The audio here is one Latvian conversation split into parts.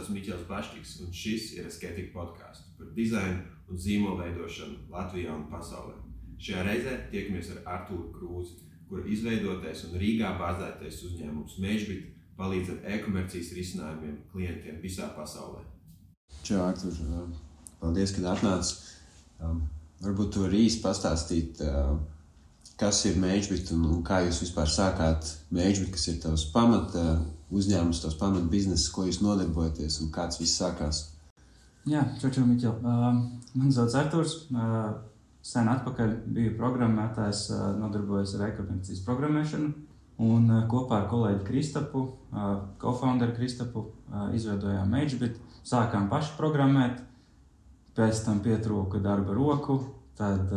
esmu Miķels Bašķiks, un šis ir Asketika podcasts par dizainu un zīmolu veidošanu Latvijā un pasaulē. Šajā reizē tiekamies ar Artūru Krūzi, kura izveidotais un Rīgā bāzētais uzņēmums Mežbit palīdz ar e-komercijas risinājumiem klientiem visā pasaulē. Čau, Artur, paldies, kad atnāc. Varbūt tu vari īsti pastāstīt, kas ir Mežbit un kā jūs vispār sākāt Mežbit, kas ir tavs pamata uzņēmums, tavs pamata bizness, ko jūs nodarbojaties un kāds viss sākās? Jā, čau, Miķel. Man sauc Arturs. Sen atpakaļ biju programmētājs, nodarbojos ar e-komercijas programmēšanu un kopā ar kolēģi Kristapu, co-founderu Kristapu, izveidojām Mežbit. Sākām paši programmēt, pēc tam pietrūka darba roku, tad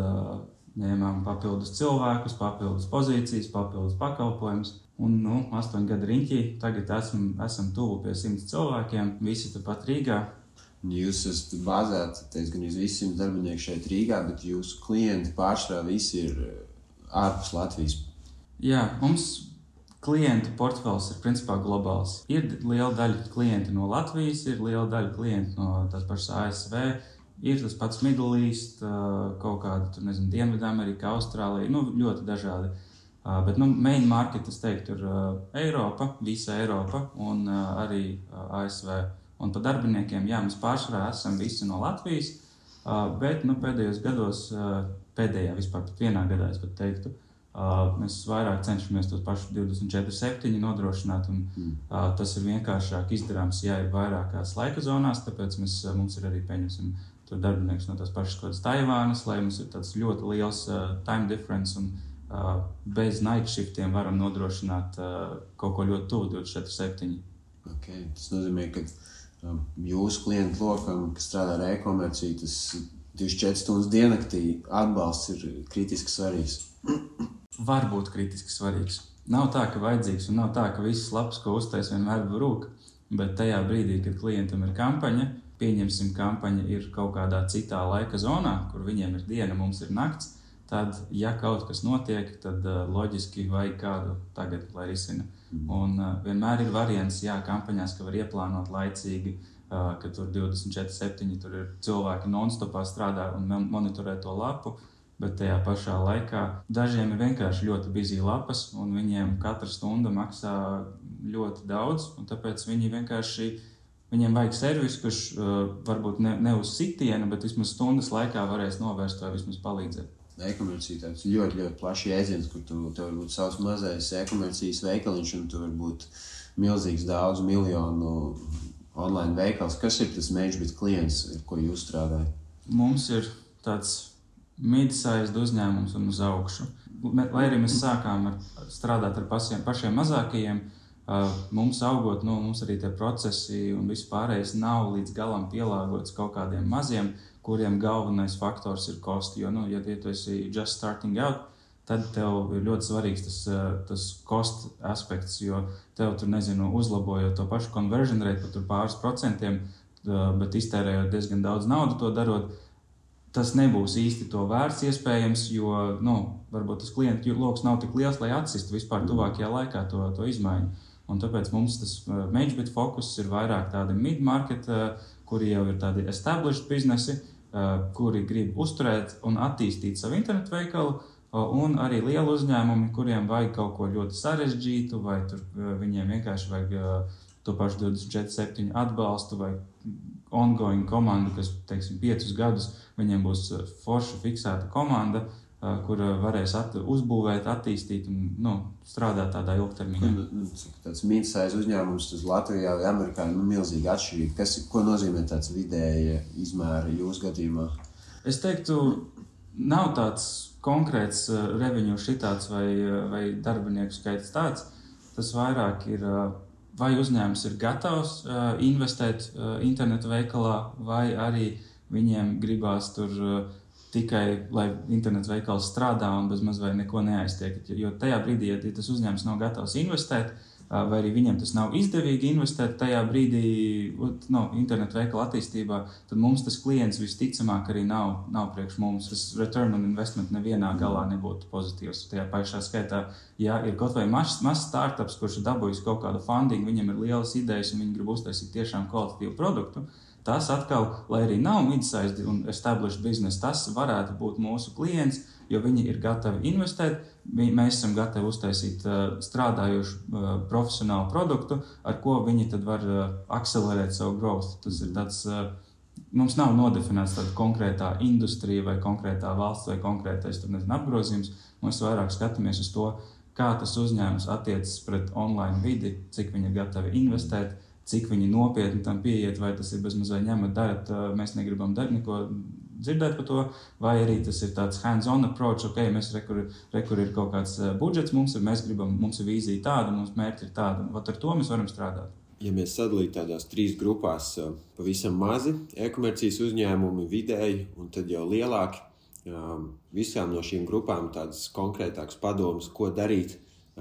ņēmām papildus cilvēkus, papildus pozīcijas, papildus pakalpojumus. Un 8 gadu riņķī, tagad esam tuvu pie 100 cilvēkiem, visi tepat Rīgā. Jūs esat bāzēti, gan jūs visi 100 darbinieki šeit Rīgā, bet jūsu klienti pārsvarā visi ir ārpus Latvijas. Jā, mums klientu portfels ir principā globāls. Ir liela daļa klienti no Latvijas, ir liela daļa klienti no tās pašas ASV, ir tas pats Middle East, kaut kāda, Dienvidamerika, Austrālija, ļoti dažādi. Bet main market, es teiktu, ir Eiropa, visa Eiropa un arī ASV. Un par darbiniekiem, jā, mēs pārsvarā esam visi no Latvijas, bet pēdējos gados, pēdējā vispār pat vienā gadā, es pat teiktu, mēs vairāk cenšamies tos pašus 24/7 nodrošināt, un tas ir vienkāršāk izdarāms, ja ir vairākās laika zonās, tāpēc mums ir arī tur darbinieks no tās pašas kādas Taivānas, lai mums ir tāds ļoti liels time difference un bez night shiftiem varam nodrošināt kaut ko ļoti tuvu 24/7. Okay. Tas nozīmē, ka jūsu klientu lokam, kas strādā ar e-komerciju, tas 24 stundas diennaktī atbalsts ir kritiski svarīgs. Var būt kritiski svarīgs. Nav tā, ka vajadzīgs, un nav tā, ka visas lapas, ko uztais, vienmēr rūk, bet tajā brīdī, kad klientam ir kampaņa, pieņemsim, kampaņa ir kaut kādā citā laika zonā, kur viņiem ir diena, mums ir nakts, tad, ja kaut kas notiek, tad loģiski vajag kādu tagad, lai risina. Un vienmēr ir variants, jā, kampaņās, ka var ieplānot laicīgi, ka tur 24/7 tur ir cilvēki non-stopā strādā un monitorē to lapu, bet tajā pašā laikā dažiem ir vienkārši ļoti busy lapas, un viņiem katra stunda maksā ļoti daudz, un tāpēc viņiem vajag servisu, kurš varbūt ne uz sitienu, bet vismaz stundas laikā varēs novērst vai vismaz palīdzēt. E-komercija tāds ļoti, ļoti plašs jēdziens, kur tev var būt savs mazais e-komercijas veikaliņš, un tu var būt milzīgs daudz miljonu online veikals. Kas ir tas Mežbit klients, ar ko jūs strādājat? Mums ir tāds mid-sized uzņēmums un uz augšu. Lai arī mēs sākām strādāt ar pašiem mazākajiem, mums augot, mums arī tie procesi un viss pārējais nav līdz galam pielāgots kaut kādiem maziem, kuriem galvenais faktors ir kosti. Jo, ja tu esi just starting out, tad tev ir ļoti svarīgs tas cost aspekts, jo tev tur, uzlabojot to pašu conversion rate pat tur pāris procentiem, bet iztērējot diezgan daudz naudu to darot, tas nebūs īsti to vērts iespējams, jo, varbūt tas klientu loks nav tik liels, lai atsistu vispār tuvākajā laikā to izmaiņu. Un tāpēc mums tas Mežbit fokus ir vairāk tādi mid-market, kuri jau ir tādi established biznesi, kuri grib uzturēt un attīstīt savu internetu veikalu, un arī lieli uzņēmumi, kuriem vajag kaut ko ļoti sarežģītu, vai tur viņiem vienkārši vajag to pašu 24/7 atbalstu, vai ongoing komandu, kas, 5 gadus, viņiem būs forša fiksēta komanda, kur varēs uzbūvēt, attīstīt un strādāt tādā ilgtermiņā. Tāds mid-size uzņēmums uz Latvijā vai Amerikā ir milzīgi atšķirīgi. Ko nozīmē tāds vidēja izmēra jūsu gadījumā? Es teiktu, nav tāds konkrēts revenue šitāds vai darbinieku skaits tāds. Tas vairāk ir, vai uzņēmums ir gatavs investēt internetu veikalā, vai arī viņiem gribās tur tikai, lai internetu veikals strādā un bezmaz vai neko neaiztiek. Jo tajā brīdī, ja tas uzņēmums nav gatavs investēt, vai arī viņiem tas nav izdevīgi investēt tajā brīdī internetu veikala attīstībā, tad mums tas klients visticamāk arī nav priekš mums. Tas return on investment nevienā galā nebūtu pozitīvs. Tajā pašā skaitā, ja ir kaut vai mazs startups, kurš ir dabūjis kaut kādu funding, viņam ir lielas idejas un viņi grib uztaisīt tiešām kvalitatīvu produktu, tas atkal, lai arī nav mid-sized un established business, tas varētu būt mūsu klients, jo viņi ir gatavi investēt, mēs esam gatavi uztaisīt strādājošu profesionālu produktu, ar ko viņi tad var akcelerēt savu growth. Tas ir tāds, mums nav nodefinēts tāda konkrētā industrija vai konkrētā valsts vai konkrētais apgrozījums. Mēs vairāk skatāmies uz to, kā tas uzņēmums attiecas pret online vidi, cik viņi ir gatavi investēt, cik viņi nopietni tam pieiet, vai tas ir bezmaz vai ņemat, darat, mēs negribam neko dzirdēt par to, vai arī tas ir tāds hands-on approach, mēs rekur ir kaut kāds budžets, mums ir vīzija tāda, mums mērķi ir tāda, un ar to mēs varam strādāt. Ja mēs sadalītu tādās 3 grupās, pavisam mazi e-komercijas uzņēmumi, vidēji un tad jau lielāki, visām no šīm grupām tādas konkrētākas padomas, ko darīt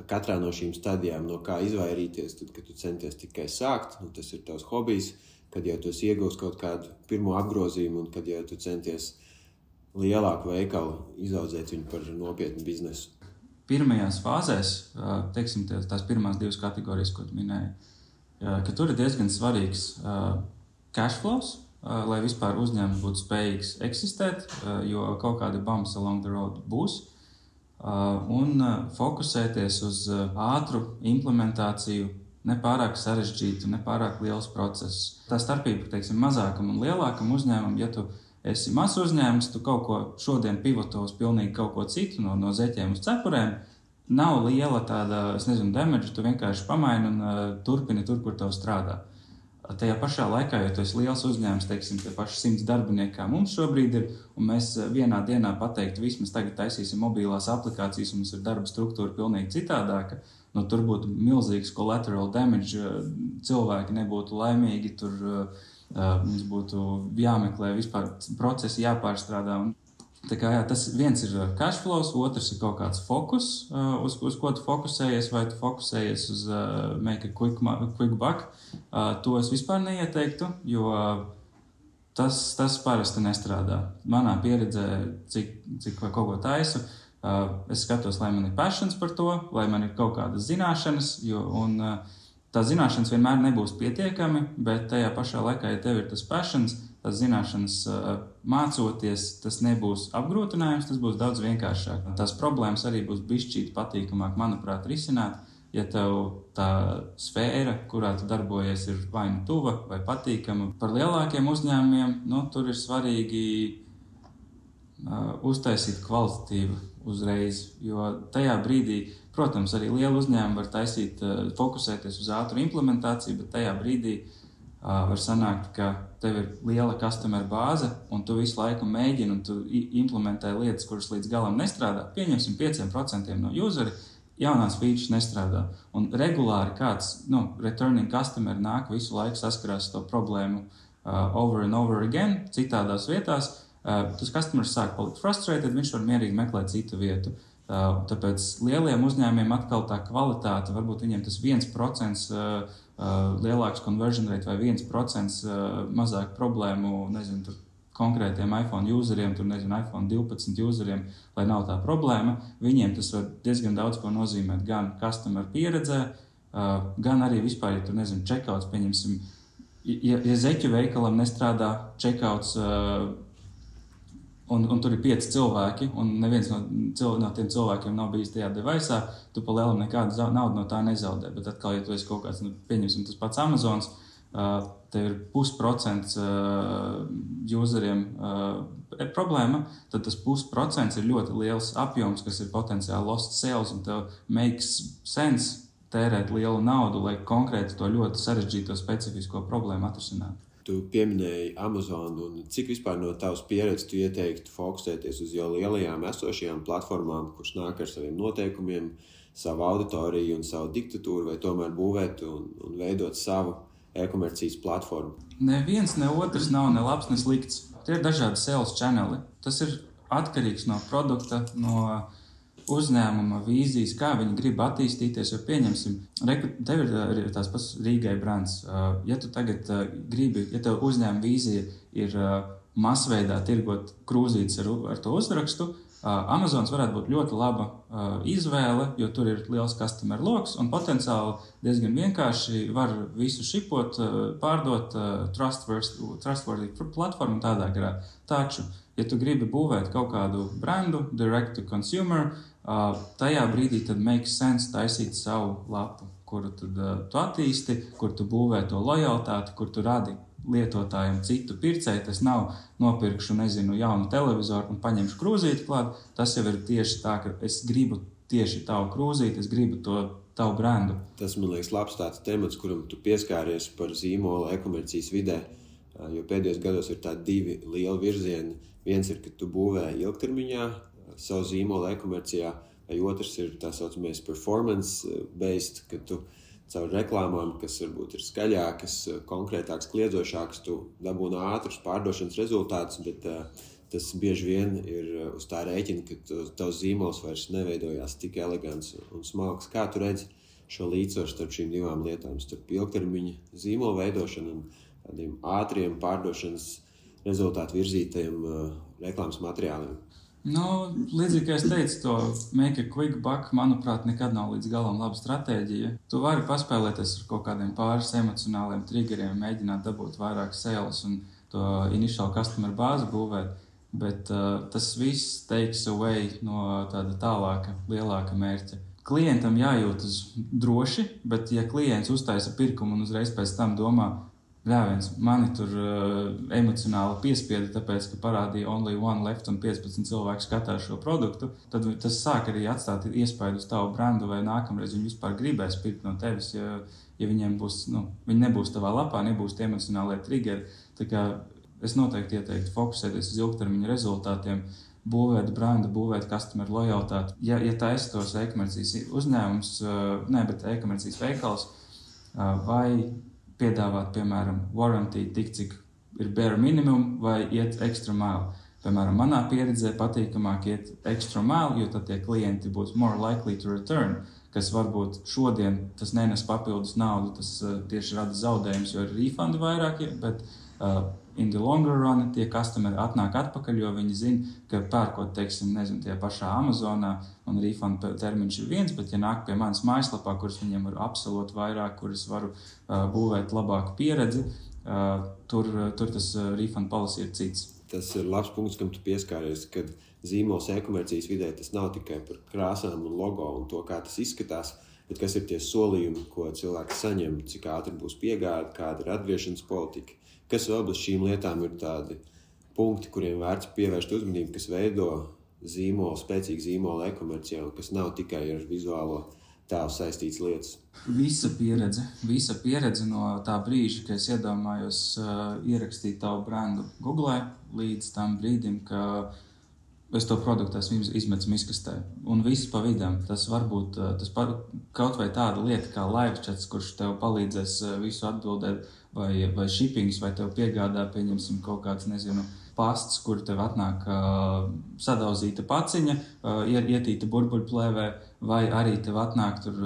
katrā no šīm stadijām, no kā izvairīties, tad, kad tu centies tikai sākt, un tas ir tavs hobijs, kad jau tu iegūsi kaut kādu pirmo apgrozījumu un kad jau tu centies lielāku veikalu izaudzēt viņu par nopietnu biznesu. Pirmajās fāzēs, teiksim, tās pirmās 2 kategorijas, ko tu minēji, ka tur ir diezgan svarīgs cash flows, lai vispār uzņēmums būtu spējīgs eksistēt, jo kaut kādi bumps along the road būs, un fokusēties uz ātru implementāciju, nepārāk sarežģītu, nepārāk liels process. Tā starpība, teiksim, mazākam un lielākam uzņēmumam, ja tu esi mazs uzņēmums, tu kaut ko šodien pivoto uz pilnīgi kaut ko citu, no zeķiem uz cepurēm, nav liela tāda, damage, tu vienkārši pamaini un turpini tur, kur tev strādā. Tajā pašā laikā, ja tu esi liels uzņēmums, teiksim, tie paši 100 darbinieki, kā mums šobrīd ir, un mēs vienā dienā pateiktu, vismaz tagad taisīsim mobilās aplikācijas, un mums ir darba struktūra pilnīgi citādāka, tur būtu milzīgs collateral damage, cilvēki nebūtu laimīgi, tur mums būtu jāmeklē vispār procesi, jāpārstrādā. Tā kā, tas viens ir cash flows, otrs ir kaut kāds fokus, uz ko tu fokusējies, vai tu fokusējies uz make a quick buck. To es vispār neieteiktu, jo tas parasti nestrādā. Manā pieredzē, cik kaut ko taisu, es skatos, lai man ir passions par to, lai man ir kaut kādas zināšanas, un tās zināšanas vienmēr nebūs pietiekami, bet tajā pašā laikā, ja tev ir tas passions, tās zināšanas mācoties, tas nebūs apgrūtinājums, tas būs daudz vienkāršāk. Tās problēmas arī būs bišķīt patīkamāk, manuprāt, risināt, ja tev tā sfēra, kurā tu darbojies, ir vai nu tuva vai patīkama. Par lielākiem uzņēmumiem, tur ir svarīgi uztaisīt kvalitatīvu uzreiz, jo tajā brīdī, protams, arī liela uzņēmuma var fokusēties uz ātru implementāciju, bet tajā brīdī var sanākt, ka tev ir liela customer bāze un tu visu laiku mēģini un tu implementē lietas, kuras līdz galam nestrādā. Pieņemsim 5% no useri, jaunās features nestrādā. Un regulāri kāds, returning customer nāk visu laiku saskarās to problēmu over and over again, citādās vietās. Tas customers sāk palikt frustrated, viņš var mierīgi meklēt citu vietu. Tāpēc lieliem uzņēmiem atkal tā kvalitāte, varbūt viņiem tas 1% lielāks conversion rate vai 1% mazāk problēmu, tur konkrētiem iPhone useriem, iPhone 12 useriem, lai nav tā problēma. Viņiem tas var diezgan daudz ko nozīmēt gan customer pieredzē, gan arī vispār, ja checkouts, pieņemsim, ja zeķu veikalam nestrādā checkouts, un tur ir 5 cilvēki, un neviens no tiem cilvēkiem nav bijis tajā device'ā, tu pa lielam nekādu naudu no tā nezaudē. Bet atkal, ja tu esi kaut kāds, pieņemsim tas pats Amazons, tev ir 0,5% useriem problēma, tad tas 0,5% ir ļoti liels apjoms, kas ir potenciāli lost sales, un tev makes sense tērēt lielu naudu, lai konkrēti to ļoti sarežģīto specifisko problēmu atrisinātu. Tu pieminēji Amazon, un cik vispār no tavas pieredzes tu ieteiktu fokusēties uz jau lielajām esošajām platformām, kuras nāk ar saviem noteikumiem, savu auditoriju un savu diktatūru, vai tomēr būvēt un veidot savu e-komercijas platformu? Neviens, ne otrs nav ne labs, ne slikts. Tie ir dažādi sales channeli. Tas ir atkarīgs no produkta, no uzņēmuma vīzijas, kā viņi grib attīstīties, jo pieņemsim, tev ir tās pats Rīgai brands. Ja tu tagad gribi, ja tev uzņēmuma vīzija ir masveidā tirgot krūzītes ar to uzrakstu, Amazons varētu būt ļoti laba izvēle, jo tur ir liels customer loks un potenciāli diezgan vienkārši var visu šipot, pārdot trustworthy platformu tādā garā. Taču, ja tu gribi būvēt kaut kādu brandu, direct to consumer, tajā brīdī tad makes sense taisīt savu lapu, kuru tad tu attīsti, kur tu būvē to lojalitāti, kur tu radi lietotājiem citu pircēju. Tas nav nopirkšu, jaunu televizoru un paņemšu krūzīti klāt. Tas jau ir tieši tā, ka es gribu tieši tavu krūzīti, es gribu to tavu brandu. Tas, man liekas, labs tāds temats, kuram tu pieskāries par zīmola e-komercijas vidē, jo pēdējos gados ir tādi divi lieli virzieni. Viens ir, ka tu būvē ilgtermiņā savu zīmola e-komercijā, vai otrs ir tā saucamais performance-based, ka tu caur reklāmām, kas varbūt ir skaļākas, konkrētākas, kliedzošākas, tu dabūni ātrus pārdošanas rezultātus, bet tas bieži vien ir uz tā rēķina, ka tavs zīmols vairs neveidojās tik elegants un smalks. Kā tu redzi šo līdzsvaru starp šīm divām lietām, starp ilgtermiņa zīmola veidošanu un tādiem ātriem pārdošanas rezultātu virzītajiem reklāmas materiāliem? Līdzīgi, kā es teicu, to make a quick buck, manuprāt, nekad nav līdz galam laba stratēģija. Tu vari paspēlēties ar kaut kādiem pāris emocionāliem triggeriem, mēģināt dabūt vairāk sales un to initial customer bāzi būvēt, bet tas viss takes away no tāda tālāka, lielāka mērķa. Klientam jājūtas droši, bet ja klients uztaisa pirkumu un uzreiz pēc tam domā, ļāviens, mani tur emocionāli piespieda, tāpēc, ka parādīja only one left un 15 cilvēku skatās šo produktu, tad tas sāk arī atstāt iespaidu uz tavu brandu, vai nākamreiz viņi vispār gribēs pirkt no tevis, ja viņiem būs, viņi nebūs tavā lapā, nebūs tie emocionālie triggeri. Tā kā es noteikti ieteiktu fokusēties uz ilgtermiņa rezultātiem, būvēt brandu, būvēt customer lojalitāti. Ja taisa tos e-komercijas uzņēmums, bet e-komercijas veikals, vai piedāvāt, piemēram, warranty tik, cik ir bare minimum, vai iet extra mile. Piemēram, manā pieredzē patīkamāk iet extra mile, jo tad tie klienti būs more likely to return, kas varbūt šodien tas nenes papildus naudu, tas tieši rada zaudējums, jo ir refundi vairāk, bet in the longer run tie customeri atnāk atpakaļ, jo viņi zina, ka pērkot, tie pašā Amazonā un refund termiņš ir viens, bet ja nāk pie manas mājaslapā, kuras viņiem var absolūti vairāk, kuras varu būvēt labāku pieredzi, tur tas refund policy ir cits. Tas ir labs punkts, kam tu pieskāries, kad zīmols e-komercijas vidē tas nav tikai par krāsām un logo un to, kā tas izskatās, bet kas ir tie solījumi, ko cilvēks saņem, cik ātri būs piegāde, kāda ir atgriešanas politika. Kas vēl bez šīm lietām ir tādi punkti, kuriem vērts pievērst uzmanību, kas veido spēcīgu zīmolu e-komercijā un kas nav tikai ar vizuālo tēlu saistīts lietas? Visa pieredze no tā brīža, kad es iedomājos ierakstīt tavu brandu Google līdz tam brīdim, ka es to produktu esmu izmetis miskastē. Un viss pa vidam. Tas var būt kaut vai tāda lieta kā live chats, kurš tev palīdzēs visu atbildēt, vai shippings, vai tev piegādā, pieņemsim kaut kāds, pasts, kur tev atnāk sadauzīta paciņa, ietīta burbuļplēvē, vai arī tev atnāk tur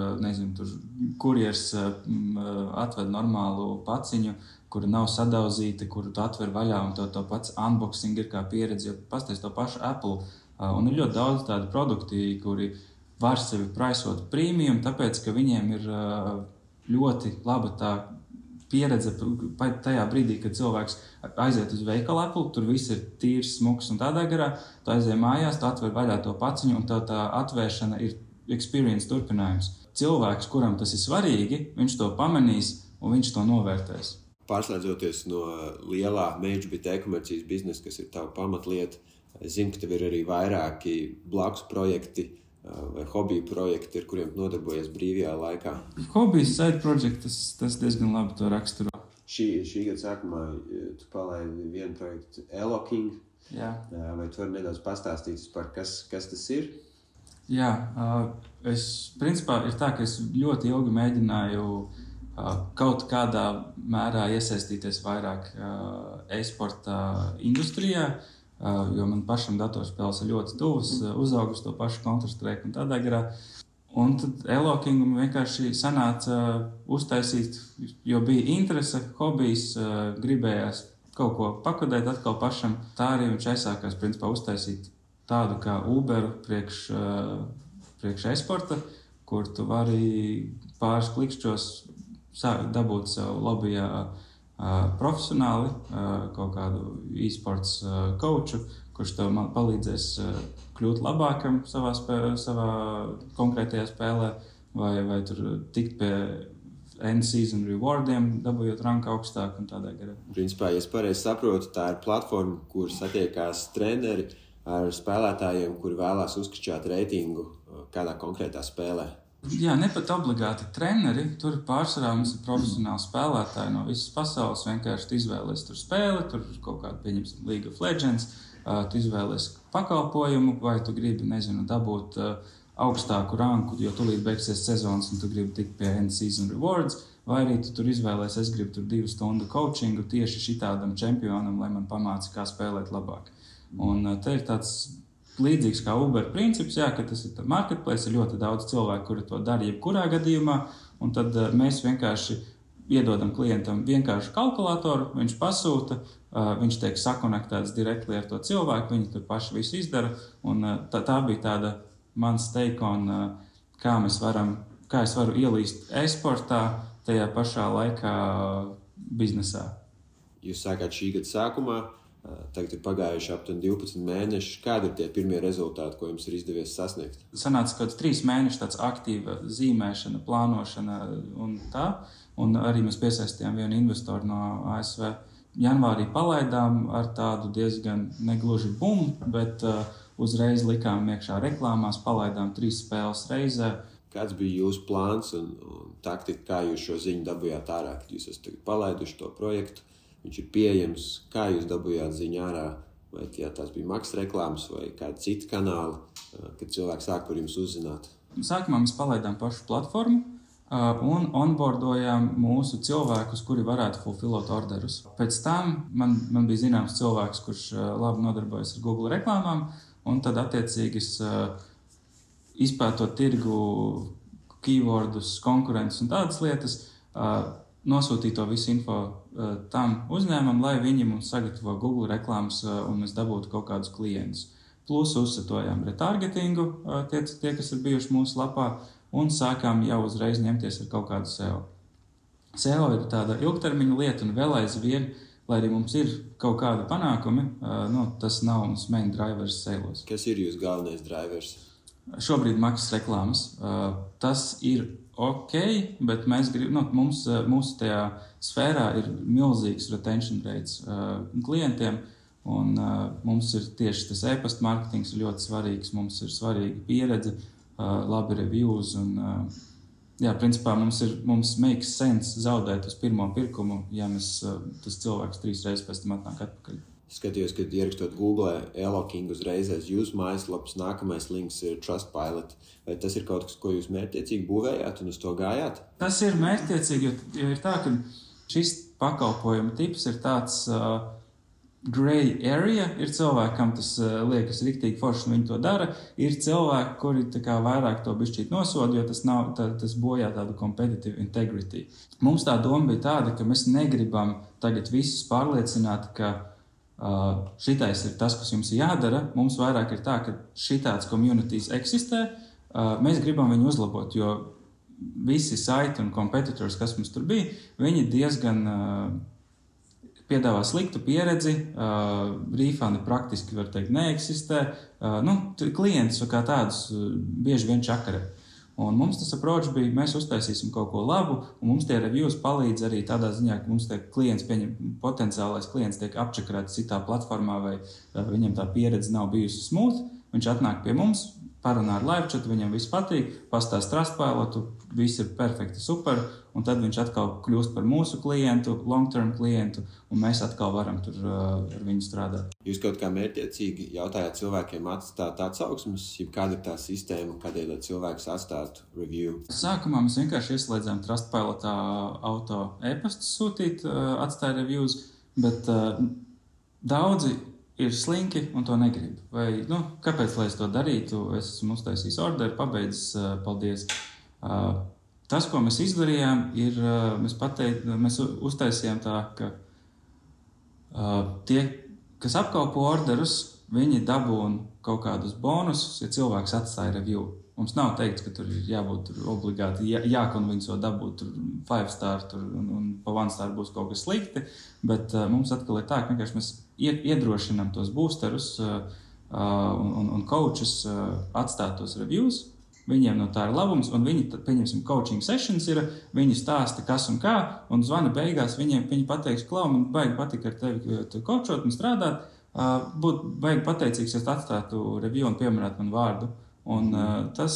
kurjers atved normālu paciņu, kura nav sadauzīta, kuru tu atver vaļā, un to pats unboxing ir kā pieredze, jo pasties to pašu Apple. Un ir ļoti daudz tādu produkti, kuri var sevi praisot premium, tāpēc, ka viņiem ir ļoti laba tā pieredze tajā brīdī, kad cilvēks aiziet uz veikalu Apple, tur viss ir tīrs, smuks un tādā garā, tu aiziet mājās, tu atver vaļā to paciņu, un tā atvēršana ir experience turpinājums. Cilvēks, kuram tas ir svarīgi, viņš to pamanīs un viņš to novērtēs. Pārslēdzoties no lielā MageBit e-komercijas biznesa, kas ir tava pamatlieta, es zinu, ka tev ir arī vairāki blakus projekti vai hobiju projekti, ar kuriem nodarbojies brīvajā laikā. Hobijas side project, tas diezgan labi to raksturo. Šī gada sākumā tu palaidi vienu projektu Eloking. Jā. Vai tu vari nedaudz pastāstīt par kas tas ir? Jā, principā ir tā, ka es ļoti ilgi mēģināju kaut kādā mērā iesaistīties vairāk e-sporta industrijā. jo man pašam datorspēles ir ļoti tuvas, uzaugu uz to pašu Counter-Strike un tādā garā. Un tad Elokingam vienkārši sanāca uztaisīt, jo bija interese, hobijs, gribējās kaut ko pakodēt atkal pašam. Tā arī viņš aizsākās, principā, uztaisīt tādu kā Uberu priekš e-sporta, kur tu vari pāris klikšķos dabūt sev lobbyjā profesionāli kaut kādu e-sports coachu, kurš tev palīdzēs kļūt labākam savā konkrētajā spēlē, vai tur tikt pie end season rewardiem, dabūjot ranku augstāk un tādā garā. Principā, ja es pareizi saprotu, tā ir platforma, kur satiekās treneri ar spēlētājiem, kuri vēlās uzkačāt reitingu kādā konkrētā spēlē. Jā, ne pat obligāti treneri, tur pārsvarā mums ir profesionāli spēlētāji no visas pasaules, vienkārši izvēlies tur spēli, tur kaut kādu, pieņemsim, League of Legends, tu izvēlies pakalpojumu, vai tu gribi, dabūt augstāku ranku, jo tūlīt beigsies sezonas un tu gribi tikt pie end season rewards, vai arī tu tur izvēlies, es gribu tur 2 stundu coachingu tieši šitādam čempionam, lai man pamāca, kā spēlēt labāk. Un te ir tāds līdzīgs kā Uber princips, jā, ka tas ir marketplace, ir ļoti daudz cilvēku, kuri to dara jebkurā gadījumā, un tad mēs vienkārši iedodam klientam vienkārši kalkulatoru, viņš pasūta, viņš tiek sakonektēts direktli ar to cilvēku, viņi tur paši visu izdara, un tā bija tāda mans take on, kā es varu ielīst e-sportā tajā pašā laikā biznesā. Jūs sākāt šī gada sākumā, tagad ir pagājuši aptuveni 12 mēneši. Kādi ir tie pirmie rezultāti, ko jums ir izdevies sasniegt? Sanāca kaut 3 mēneši tāds aktīva zīmēšana, plānošana un tā. Un arī mēs piesaistījām vienu investoru no ASV. Janvārī palaidām ar tādu diezgan negluži bumu, bet uzreiz likām iekšā reklāmās, palaidām 3 spēles reizē. Kāds bija jūsu plāns un taktika, kā jūs šo ziņu dabūjāt ārā, kad jūs esat palaiduši to projektu? Viņš ir pieejams, kā jūs dabūjāt ziņu ārā, vai tās bija maksas reklāmas vai kādi citi kanāli, kad cilvēki sāk par jums uzzināt? Sākumā mēs palaidām pašu platformu un onboardojām mūsu cilvēkus, kuri varētu fulfillot orderus. Pēc tam man bija zināms cilvēks, kurš labi nodarbojas ar Google reklāmām, un tad attiecīgi izpētot tirgu, keywordus, konkurentus un tādas lietas, nosūtīt to visu info tam uzņēmumam, lai viņi mums sagatavo Google reklāmas un mēs dabūtu kaut kādus klientus. Plus uzsatojām retargetingu, tie, kas ir bijuši mūsu lapā, un sākām jau uzreiz ņemties ar kaut kādu SEO. SEO ir tāda ilgtermiņa lieta un vēl aizvien, lai arī mums ir kaut kādi panākumi, tas nav mums main drivers sales. Kas ir jūsu galvenais drivers? Šobrīd maksas reklāmas. Tas ir ok, bet mēs mūsu tajā sfērā ir milzīgs retention rates klientiem, un mums ir tieši tas e-pasta marketings ļoti svarīgs, mums ir svarīga pieredze, labi reviews, un principā mums makes sense zaudēt uz pirmo pirkumu, ja tas cilvēks 3 reizes pēc tam atnāk atpakaļ. Skatījos, kad ierakstot Google Eloking uzreiz aiz jūsu mājaslapas, nākamais links ir Trustpilot. Vai tas ir kaut kas, ko jūs mērķtiecīgi būvējāt un uz to gājāt? Tas ir mērķtiecīgi, jo ir tā, ka šis pakalpojuma tips ir tāds gray area. Ir cilvēki, kam tas liekas riktīgi forši, un viņi to dara. Ir cilvēki, kuri vairāk to bišķīt nosoda, jo tas bojā tādu competitive integrity. Mums tā doma bija tāda, ka mēs negribam tagad visus pārliecināt, ka šitais ir tas, kas jums jādara. Mums vairāk ir tā, ka šitāds communities eksistē. Mēs gribam viņu uzlabot, jo visi saiti un competitors, kas mums tur bija, viņi diezgan piedāvā sliktu pieredzi, refundi praktiski, var teikt, neeksistē. Klientus kā tādus bieži vien čakarē. Un mums tas approach bija, mēs uztaisīsim kaut ko labu, un mums tie reviews palīdz arī tādā ziņā, ka mums potenciālais klients tiek apčakarēts citā platformā, vai viņam tā pieredze nav bijusi smooth. Viņš atnāk pie mums, parunā ar live chat, viņam viss patīk, pastāst Trustpilotu, viss ir perfekti, super, un tad viņš atkal kļūst par mūsu klientu, long-term klientu, un mēs atkal varam tur ar viņu strādāt. Jūs kaut kā mērķtiecīgi jautājāt cilvēkiem atstāt atsauksmes, ja kāda ir tā sistēma, kādēļ cilvēks atstātu review? Sākumā mēs vienkārši ieslēdzām Trustpilotā auto e-pastus sūtīt, atstāja reviews, bet daudzi ir slinki un to negrib. Vai, kāpēc, lai es to darītu? Es esmu uztaisījis orderu, pabeidzis, paldies. Tas, ko mēs izdarījām, ir, mēs uztaisījām tā, ka tie, kas apkalpo orderus, viņi dabūna kaut kādus bonusus, ja cilvēks atstāja review. Mums nav teikts, ka tur ir jābūt obligāti, jākonvinco dabūt 5 star un pa 1 star būs kaut kas slikti, bet mums atkal ir tā, ka vienkārši mēs iedrošinām tos boosterus un coachus atstāt tos reviews. Viņiem no tā ir labums, un viņi, pieņemsim, coaching sessions ir, viņi stāsta, kas un kā, un zvana beigās viņi pateiks, klau, man baigi patika ar tevi coachot un strādāt, būtu baigi pateicīgs, ja atstātu review un pieminētu man vārdu. Un tas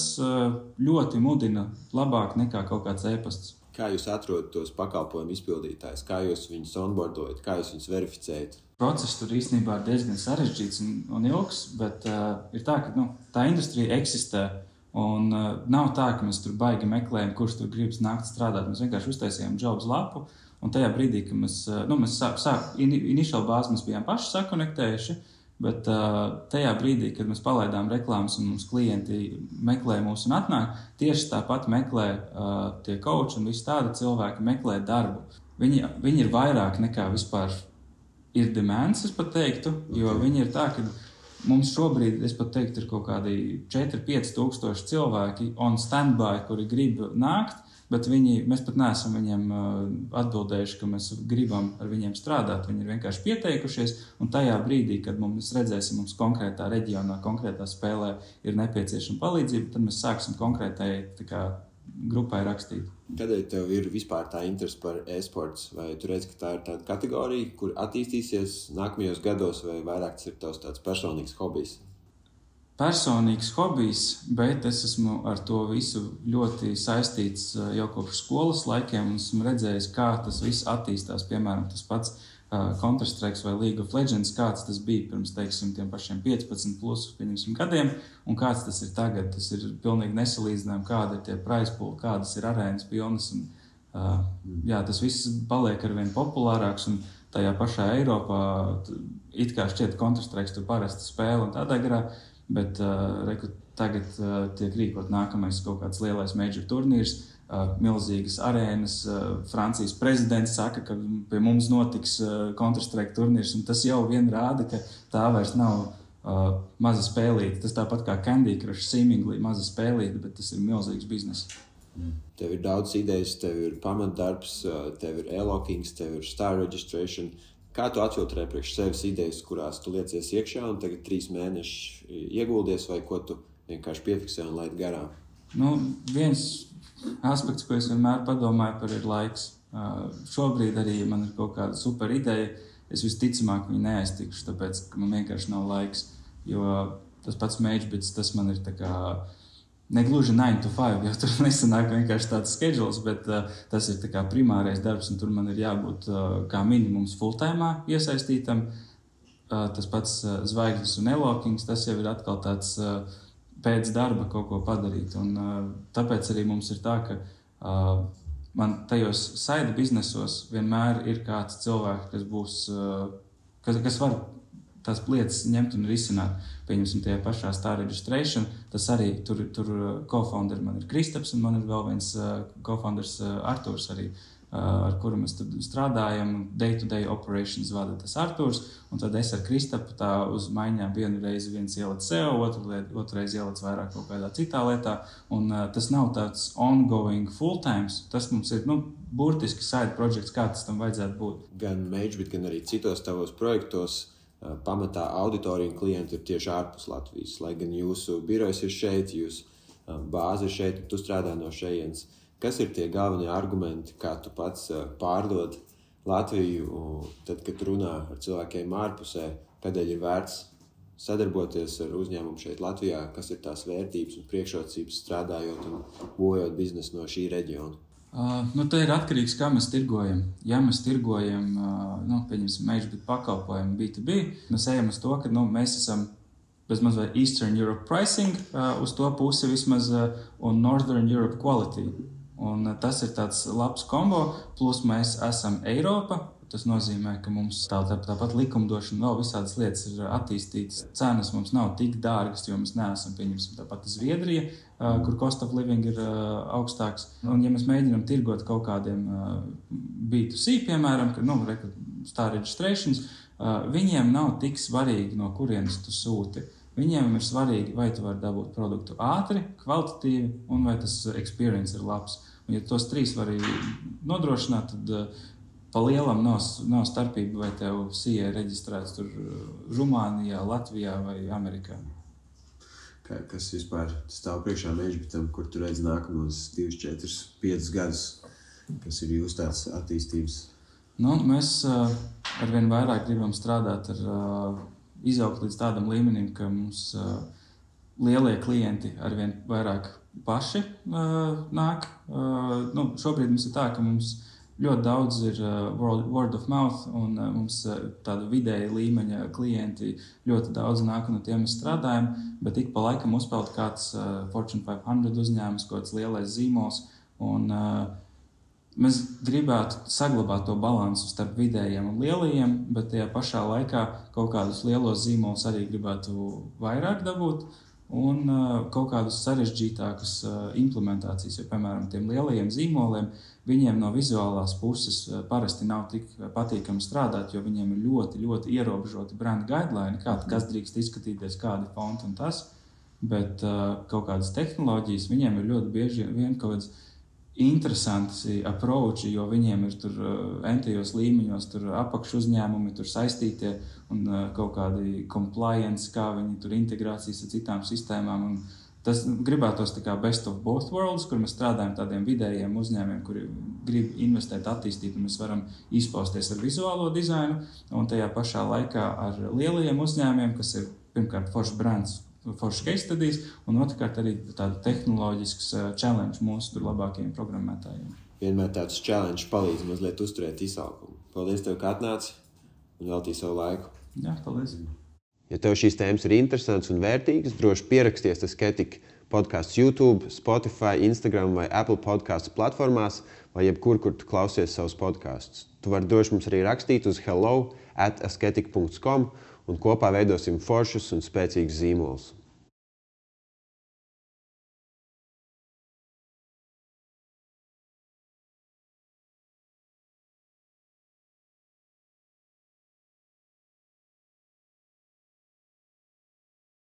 ļoti mudina labāk nekā kaut kāds e-pasts. Kā jūs atrodat tos pakalpojumu izpildītājus? Kā jūs viņus onboardojat? Kā jūs viņus verificējat? Process tur īstenībā ir diezgan sarežģīts un ilgs, bet ir tā, ka tā industrija eksistē. Un nav tā, ka mēs tur baigi meklējam, kurš tur gribas nākt strādāt. Mēs vienkārši uztaisījām jobs lapu, un tajā brīdī, ka mēs initial bāzi mēs bijām paši sakonektējuši, bet tajā brīdī, kad mēs palaidām reklāmas un mums klienti meklē mūs un atnāk, tieši tāpat meklē tie coachi un visi tādi cilvēki meklē darbu. Viņi ir vairāk nekā vispār ir demands, es pat teiktu, jo viņi ir tā, ka mums šobrīd, es pat teiktu, ir kaut kādi 4-5 tūkstoši cilvēki on standby, kuri grib nākt, bet mēs pat neesam viņiem atbildējuši, ka mēs gribam ar viņiem strādāt. Viņi ir vienkārši pieteikušies, un tajā brīdī, kad mēs redzēsim, mums konkrētā reģionā, konkrētā spēlē ir nepieciešama palīdzība, tad mēs sāksim konkrētai grupai rakstīt. Kādēļ tev ir vispār tā interese par e-sports? Vai tu redzi, ka tā ir tāda kategorija, kur attīstīsies nākamajos gados, vai vairāk tas ir tavs tāds personīgs hobijs? Personīgs hobijs, bet es esmu ar to visu ļoti saistīts jau kopš skolas laikiem un esmu redzējis, kā tas viss attīstās. Piemēram, tas pats Counter-Strike vai League of Legends, kāds tas bija pirms, teiksim, tiem pašiem 15 plus, pieņemsim, gadiem, un kāds tas ir tagad. Tas ir pilnīgi nesalīdzinājumi, kāda ir tie prize pool, kādas ir arēnas pilnas, un tas viss paliek arvien populārāks, un tajā pašā Eiropā it kā šķiet Counter-Strike tur parasti spēle un tādā garā, bet tagad tiek rīkot nākamais kaut kāds lielais major turnīrs, milzīgas arēnas. Francijas prezidents saka, ka pie mums notiks Counter-Strike turnīrs, un tas jau vien rāda, ka tā vairs nav maza spēlīte. Tas tāpat kā Candy Crush, seemingly maza spēlīte, bet tas ir milzīgs biznes. Tev ir daudz idejas, tev ir pamatdarbs, tev ir e-lockings, tev ir star registration. Kā tu atfiltrē priekš sevis idejas, kurās tu liecies iekšā un tagad 3 mēneši ieguldies, vai ko tu vienkārši piefiksē un laid garām? Viens aspekts, ko es vienmēr padomāju par, ir laiks. Šobrīd arī man ir kaut kāda super ideja. Es visticamāk viņu neaiztikšu, tāpēc, ka man vienkārši nav laiks. Jo tas pats MageBits, tas man ir tā kā negluži 9 to 5, jo tur nesanāk vienkārši tāds schedules, bet tas ir tā kā primārais darbs, un tur man ir jābūt kā minimums full-timā iesaistītam. Tas pats zvaigznes un e-lockings, tas jau ir atkal tāds pēc darba kaut ko padarīt. Un tāpēc arī mums ir tā, ka man tajos side biznesos vienmēr ir kāds cilvēks, kas būs, kas var tās lietas ņemt un risināt. Pieņemsim tajā pašā star registration, tas arī tur co-founder man ir Kristaps, un man ir vēl viens co-founders Arturs arī, ar kuru mēs tad strādājam. Day-to-day operations vada tas Arturs, un tad es ar Kristapu tā uz maiņām vienu reizi viens ielec SEO, otru reizi ielec vairāk kaut kādā citā lietā, un tas nav tāds ongoing full-times, tas mums ir, burtiski side projects, kā tas tam vajadzētu būt. Gan MageBit, gan arī citos tavos projektos pamatā auditorija un klienti ir tieši ārpus Latvijas, lai gan jūsu birojs ir šeit, jūsu bāze ir šeit, tu strādā no šejienes. Kas ir tie galvenie argumenti, kā tu pats pārdod Latviju, tad, kad runā ar cilvēkiem ārpusē, kādēļ ir vērts sadarboties ar uzņēmumu šeit Latvijā, kas ir tās vērtības un priekšrocības strādājot un būvējot biznesu no šī reģiona? Tā ir atkarīgs, kā mēs tirgojam. Ja mēs tirgojam, pieņemsim, MageBit pakalpojumu B2B, mēs ejam uz to, ka mēs esam bezmaz vai Eastern Europe pricing uz to pusi vismaz un Northern Europe quality. Un tas ir tāds labs kombo, plus mēs esam Eiropa, Tas nozīmē, ka mums tāpat likumdošana, vēl visādas lietas ir attīstītas. Cenas mums nav tik dārgas, jo mēs neesam, pieņemsim, tāpat Zviedrija, kur cost of living ir augstāks. Un, ja mēs mēģinām tirgot kaut kādiem B2C, piemēram, star registrations, viņiem nav tik svarīgi, no kurienes tu sūti. Viņiem ir svarīgi, vai tu vari dabūt produktu ātri, kvalitatīvi, un vai tas experience ir labs. Un, ja tos trīs var nodrošināt, tad pa lielam nav starpība, vai tev CA reģistrēts tur Rumānijā, Latvijā vai Amerikā. Kas vispār stāv priekšā MageBitam, kur tu redz nākamos 2, 4, 5 gadus, kas ir jūsu tāds attīstības? Mēs arvien vairāk gribam strādāt ar izaugt līdz tādam līmenim, ka mums lielie klienti arvien vairāk paši nāk. Šobrīd mums ir tā, ka mums ļoti daudz ir word of mouth, un mums tāda vidēja līmeņa klienti ļoti daudz nāk, un ar tiem mēs strādājam, bet ik pa laikam uzpeld kāds Fortune 500 uzņēmums, kāds lielais zīmols, un mēs gribētu saglabāt to balansu starp vidējiem un lielajiem, bet tajā pašā laikā kaut kādus lielos zīmolus arī gribētu vairāk dabūt un kaut kādus sarežģītākus implementācijas, jo, piemēram, tiem lielajiem zīmoliem, viņiem no vizuālās puses parasti nav tik patīkami strādāt, jo viņiem ir ļoti, ļoti ierobežoti brand guideline, kas drīkst izskatīties, kādi fonti un tas, bet kaut kādas tehnoloģijas viņiem ir ļoti bieži vien kaut kāds interesanti approachi, jo viņiem ir tur entajos līmeņos, tur apakšu uzņēmumi, tur saistītie un kaut kādi compliance, kā viņi tur integrācijas ar citām sistēmām. Un tas gribētos tā kā best of both worlds, kur mēs strādājam tādiem vidējiem uzņēmiem, kuri grib investēt, attīstīt, un mēs varam izpausties ar vizuālo dizainu, un tajā pašā laikā ar lielajiem uzņēmiem, kas ir pirmkārt foršs brands, foršs case studies, un otrkārt arī tāda tehnoloģisks challenge mūsu tur labākajiem programmētājiem. Vienmēr tāds challenge palīdz mazliet uzturēt izaugumu. Paldies tev, ka atnāci un veltīji savu laiku. Jā, paldies. Ja tev šīs tēmas ir interesants un vērtīgas, droši pieraksties Asketik podcasts YouTube, Spotify, Instagram vai Apple podcastu platformās vai jebkur, kur tu klausies savus podkastus. Tu vari droši mums arī rakstīt uz hello@asketik.com un kopā veidosim foršus un spēcīgus zīmolus.